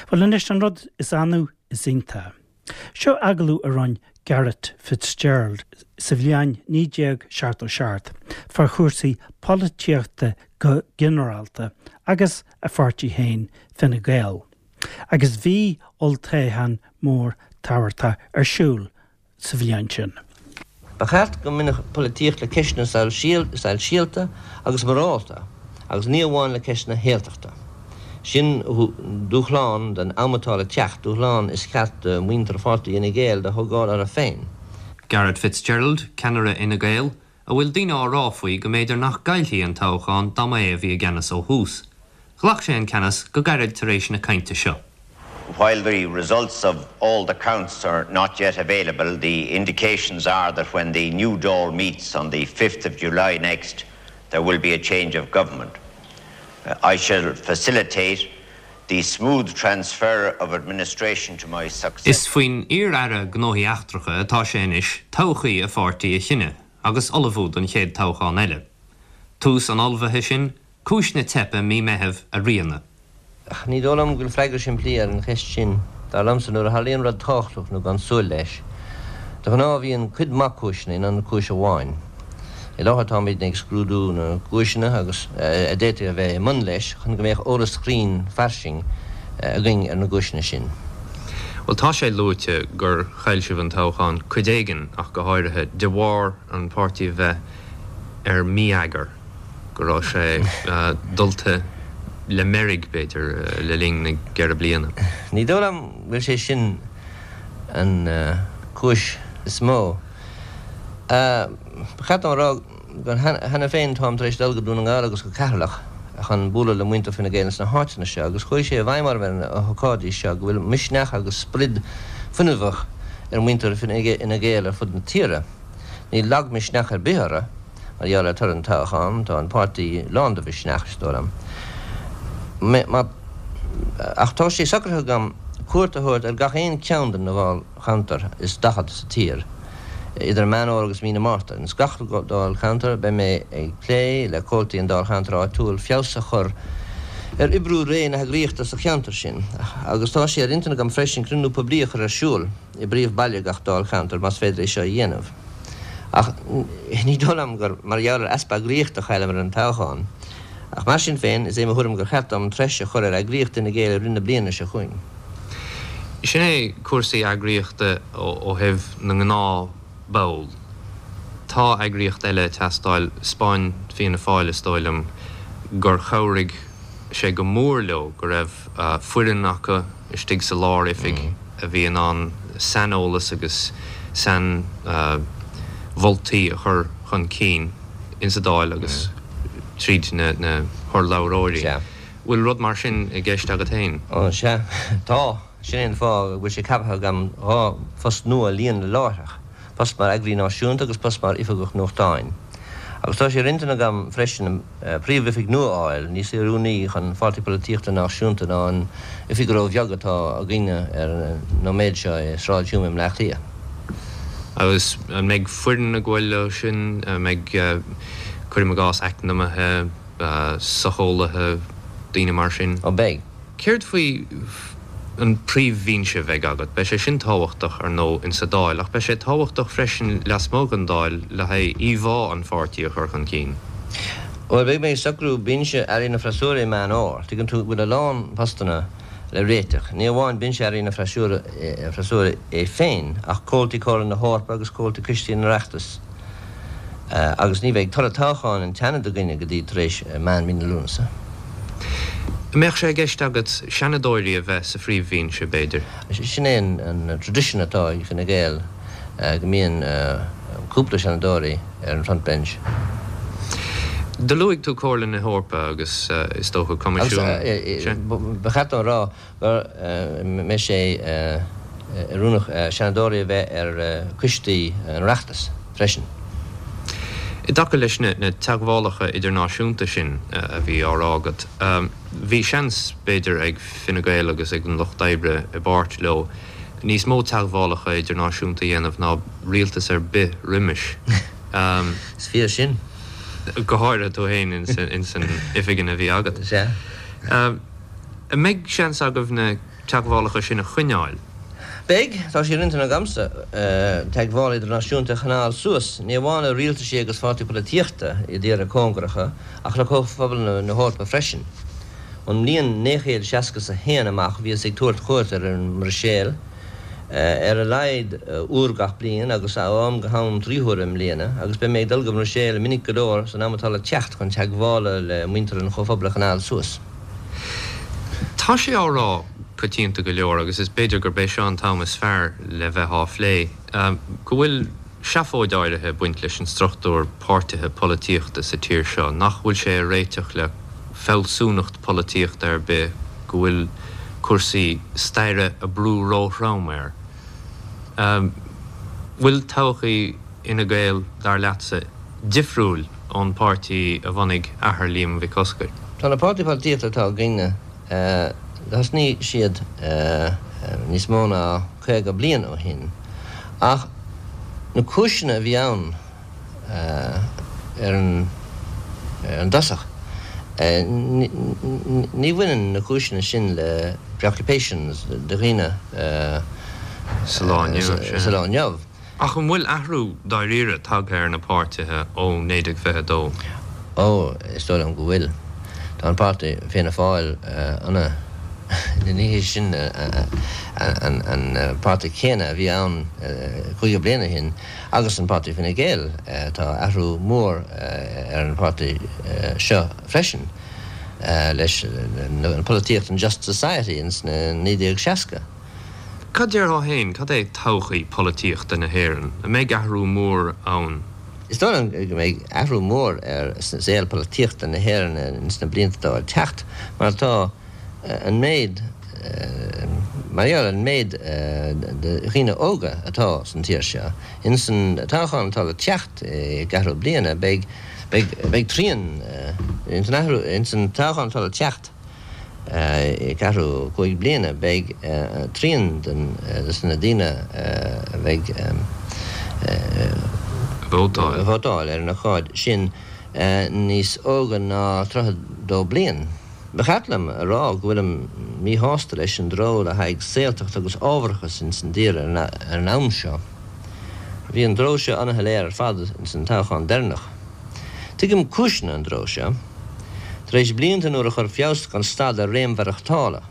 Bhuel anois, an rud is annamh is iontach. Seo agallamh a rinne Garret FitzGerald sa bhliain 1977 fá chúrsaí polaitíochta go ginearálta agus a pháirtí féin, Fine Gael. Agus bhí olltoghchán mór tábhachtach ar siúl sa bhliain sin. Ba cheart go mbainfeadh polaitíocht le ceisteanna soisíalta agus morálta agus ní amháin le ceisteanna shaoltachta. Sin dúshlán don am atá le teacht, dúshlán is ceart do mhuintir pháirtí Fhine Gael do thógáil orthu féin. Garret FitzGerald, ceannaire Fhine Gael, a bhfuil daoine á rá faoi go mb'fhéidir nach gcaillfí an toghchán dá mba é a bhí i gceannas ó thús. Ghlac sé an ceannas go gairid tar éis na cainte seo. While the results of all the counts are not yet available, the indications are that when the new Dáil meets on the 5th of July next, there will be a change of government. I shall facilitate the smooth transfer of administration to my successor. Is faoin iar-aire Gnóthaí Eachtracha atá sé anois todhchaí a pháirtí a chinneadh agus ullmhú don chéad toghchán eile. Tús an ullmhaithe sin, cúis na teipe mí Meithimh a rianadh. Ach ní dóigh liom go bhfuil freagra simplí ar an cheist sin. Dar liomsa, nuair a tharlaíonn rud tábhachtach nó gan súil leis, de ghnáth bíonn cuid mhaith cúiseanna in ionad cúis amháin. I láthair táimidne ag scrúdú na gcúiseanna agus a d'fhéadfadh a bheith i mbun leis chun go mbeadh eolas cruinn fairsing againn ar na gcúiseanna sin. Bhuel, tá sé luaite gur chaill sibh an toghchán, cuid éigin ach go háirithe, de bharr an páirtí a bheith ar mí-eagar. go raibh sé dulta le meirg, b'fhéidir, le linn na gceithre bliana. Ní dóigh liom go bhfuil sé sin an chúis is mó. Ba cheart dom a rá gur cheana féin táim tar éis dul go Dún na nGall agus go Ceatharlach chun bualadh le muintir Fine Gael ins na háiteanna seo agus chuaigh sé i bhfeidhm orm ar na hócáidí seo go bhfuil misneach agus sprid fuinneamhach ar mhuintir Fhine Gael ar fud na tíre. Níl lagmhisneach ar bith orthu. Mar gheall ar toradh an toghcháin, tá an páirtí lán de mhisneach, is dóigh liom. Ach tá sé socraithe agam cuairt a thabhairt ar gach aon cheann de na dáilcheantair is 40 sa tír idir Meán Fhómhair agus mí na Márta. Ins gach dáilcheantar beidh mé ag plé le comhaltaí an dáilcheantair áitiúil feabhas a chur ar oibriú réidh na heagraíochta sa cheantar sin. Agus tá sé ar intinn agam freisin cruinniú poiblí a chur ar siúl i bpríomh-bhaile gach dáilcheantair más féidir é seo a dhéanamh. Ach ní dóigh liom gur mar gheall ar easpa eagraíochta a chailleamar an toghchán. Ach mar sin féin, is é mo thuairim gur cheart dom treis a chur ar eagraíocht Fhine Gael i rith na bliana seo chugainn. Sin é cúrsaí eagraíochta ó thaobh na ngnáthbhall. Tá eagraíocht eile ag teastáil. 'Spáin Fianna Fáil, is dóigh liom, gur chabhraigh sé go mór leo go raibh foireann acu istigh sa lár-oifig a bhí in ann saineolas agus sainmholtaí a chur chun cinn insa Dáil agus tríd na hurlabhróirí. Bhfuil rud mar sin i gceist agat féin? Ó, sea, tá. Sin é an fáth go bhfuil sé ceaptha agam 2 phost nua a líonadh láithreach. post mar Eagraí Náisiúnta agus post mar Oifigeach Nuachtáin. Agus tá sé ar intinn agam freisin príomhoifig nua a fháil, níos oiriúnaí chun pháirtí polaitíochta náisiúnta ná an oifig ró-bheag atá againne ar an nóiméad seo i Sráid Hume i mBleá Cliath. Agus an mbeidh foireann ag gabháil leo sin? An mbeidh, cuirim i gcás, eacnamaithe, socheolaithe, daoine mar sin? Ó beidh. Céard faoi an príomhbhinse a bheidh agat? Beidh sé sin tábhachtach, ar ndóigh, insa Dáil, ach beidh sé tábhachtach freisin lasmuigh den Dáil le haghaidh íomhá an pháirtí a chur chun cinn. Bhuel, beidh mé ag socrú binse Airí na Freasúra i Meán Fhómhair. Tuigeann tú go bhfuil a lán postanna le réiteach, ní amháin binse Airí na Freasúra é féin, ach comhaltaí Comhairle na hEorpa agus comhaltaí coistí an Oireachtais. Agus ní bheidh toradh toghcháin an tSeanaid againne go dtí tar éis meán mí na Lúnasa. An mbeadh sé i gceist agat seanadóirí a bheith sa phríomhbhinse, b'fhéidir? Sin é an tradition atá ag Fine Gael, go mbíonn cúpla seanadóirí ar an front bench. Do luaigh tú Comhairle na hEorpa agus is dócha Coimisiún. Agus ba cheart dom a rá go mbeidh sé oiriúnach seanadóirí a bheith ar choistí an Oireachtais freisin. I dtaca leis na teagmhálacha idirnáisiúnta sin a bhí á rá agat, bhí seans, b'fhéidir, ag Fine Gael agus ag an Lucht Oibre i bpáirt leo, níos mó teagmhálacha idirnáisiúnta a dhéanamh ná rialtas ar bith roimis. Is fíor sin. Go háirithe tú féin ins an oifig a bhí agat. Sea. An mbeidh seans agaibh na. teagmhálacha sin a choinneáil? Beidh. Tá sé ar intinn agamsa teagmháil idirnáisiúnta a choinneáil suas, ní amháin le rialtaisí agus pháirtí polaitíochta i dtíortha cóngaracha, ach le Comhphobal na hEorpa freisin. Ón mbliain 1961 amach bhíos ag tabhairt cuairt ar an mBruiséil ar a laghad uair gach bliain agus ó am go ham 3 huaire i mbliana, agus beidh mé ag dul go mBruiséil minic go leor san am atá le teacht chun teagmhála le muintir an Chomhphobail a choinneáil suas. Tá sé á rá coitianta go leor, agus is b'fhéidir gurb é seo an t-am is fearr le bheith á phlé, go bhfuil seafóid áirithe ag baint leis an struchtúr páirtithe polaitíochta sa tír seo, nach bhfuil sé ag réiteach le fealsúnacht polaitíochta ar bith, go bhfuil cúrsaí staire ag brú róthrom air. Bhfuil todhchaí Fhine Gael, dar leatsa, difriúil ón bpáirtí a bhunaigh athair Liam Mhic Oscair? Tá na páirtí polaitíochta atá againne, thosnaigh siad níos mó ná 50 bliain ó shin, ach na cúiseanna a bhí ann ar an dtosach, ní bhaineann na cúiseanna sin le preoccupations de dhaoine sa lá inniu. Ach an bhfuil athrú dáiríre tagtha ar na páirtithe ó 1922? Ó, is dóigh liom go bhfuil. Tá an páirtí Fianna Fáil ana, ní hé sin an páirtí céanna a bhí ann 50 bliain ó shin, agus an páirtí Fine Gael, tá athrú mór ar an pháirtí seo freisin leis an polaitíocht an Just Society ins na 1960. Cad déarfá féin, cad é todhchaí polaitíochta na hÉireann? An mbeidh athrú mór ann? Is dóigh liom go mbeidh athrú mór ar saol polaitíochta na hÉireann ins na blianta atá le teacht mar tá an méid, mar gheall ar an méid de dhaoine óga atá san tír seo. Ins an toghchán atá le teacht i gceathrú bliana beidh, beidh, beidh trian, ins an athrú, ins an toghchán atá le teacht, i gceathrú 5 bliana beidh trian de na daoine a bheidh ag vótáil ar an ócáid sin níos óga ná 32 bliain. Ba cheart liom a rá go bhfuilim míshásta leis an dtreo le haghaidh saoltacht agus ábharachas ins an dtír ar an am seo. Bhí an dtreo seo ana-shoiléir ar fad ins an toghchán deireanach. Tuigim cúiseanna an dtreo seo. Tar éis blianta nuair a chuir feabhas gan stad ar réim mhaireachtála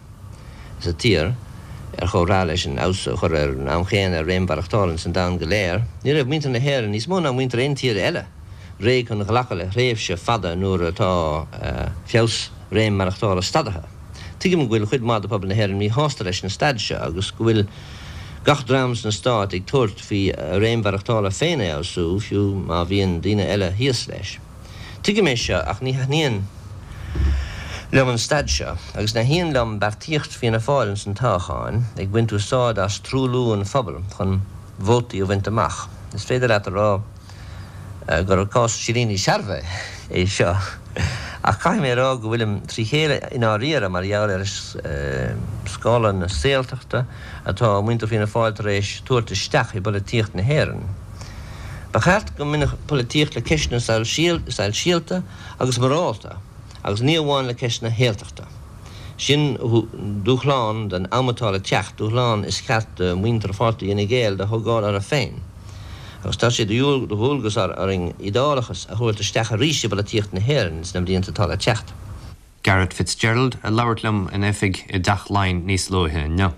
sa tír, ar chomhthráth leis an fheabhas a chur ar an am chéanna ar réim mhaireachtála ins an domhan go léir, ní raibh muintir na hÉireann, níos mó ná muintir aon tír eile, réidh chun ghlacadh le thréimhse fada nuair atá feabhas réim maireachtála stadaithe. Tuigim go bhfuil chuid mhaith de phobal na hÉireann míshásta leis an staid seo agus go bhfuil gach dream sna Stáit ag tabhairt faoi a réim mhaireachtála féin a fheabhsú, fiú má bhíonn daoine eile thíos leis. Tuigim é seo ach ní thaitníonn liom an staid seo agus ní thaitníonn liom beartaíocht Fianna Fáil ins an toghcháin ag baint úsáid as truailliú an phobail chun vótaí a bhaint amach. Is féidir leat a rá gur cás silíní searbha é seo ach caithfidh mé a rá go bhfuilim trí chéile i ndáiríre mar gheall ar scála na saoltachta atá muintir Fianna Fáil tar éis tabhairt isteach i bpolaitíocht na hÉireann. Ba cheart go mbainfeadh polaitíocht le ceisteanna soisialta agus morálta agus ní amháin le ceisteanna shaoltachta. Sin dúshlán don am atá le teacht, dúshlán is ceart do mhuintir pháirtí Fhine Gael do thógáil orthu féin. Agus tá sé de dhualgas orainn iodálachas a thabhairt isteach arís i bpolaitíocht na hÉireann sna blianta atá le teacht. Garret FitzGerald ag labhairt liom ina oifig i dTeach Laighean níos luaithe inniu.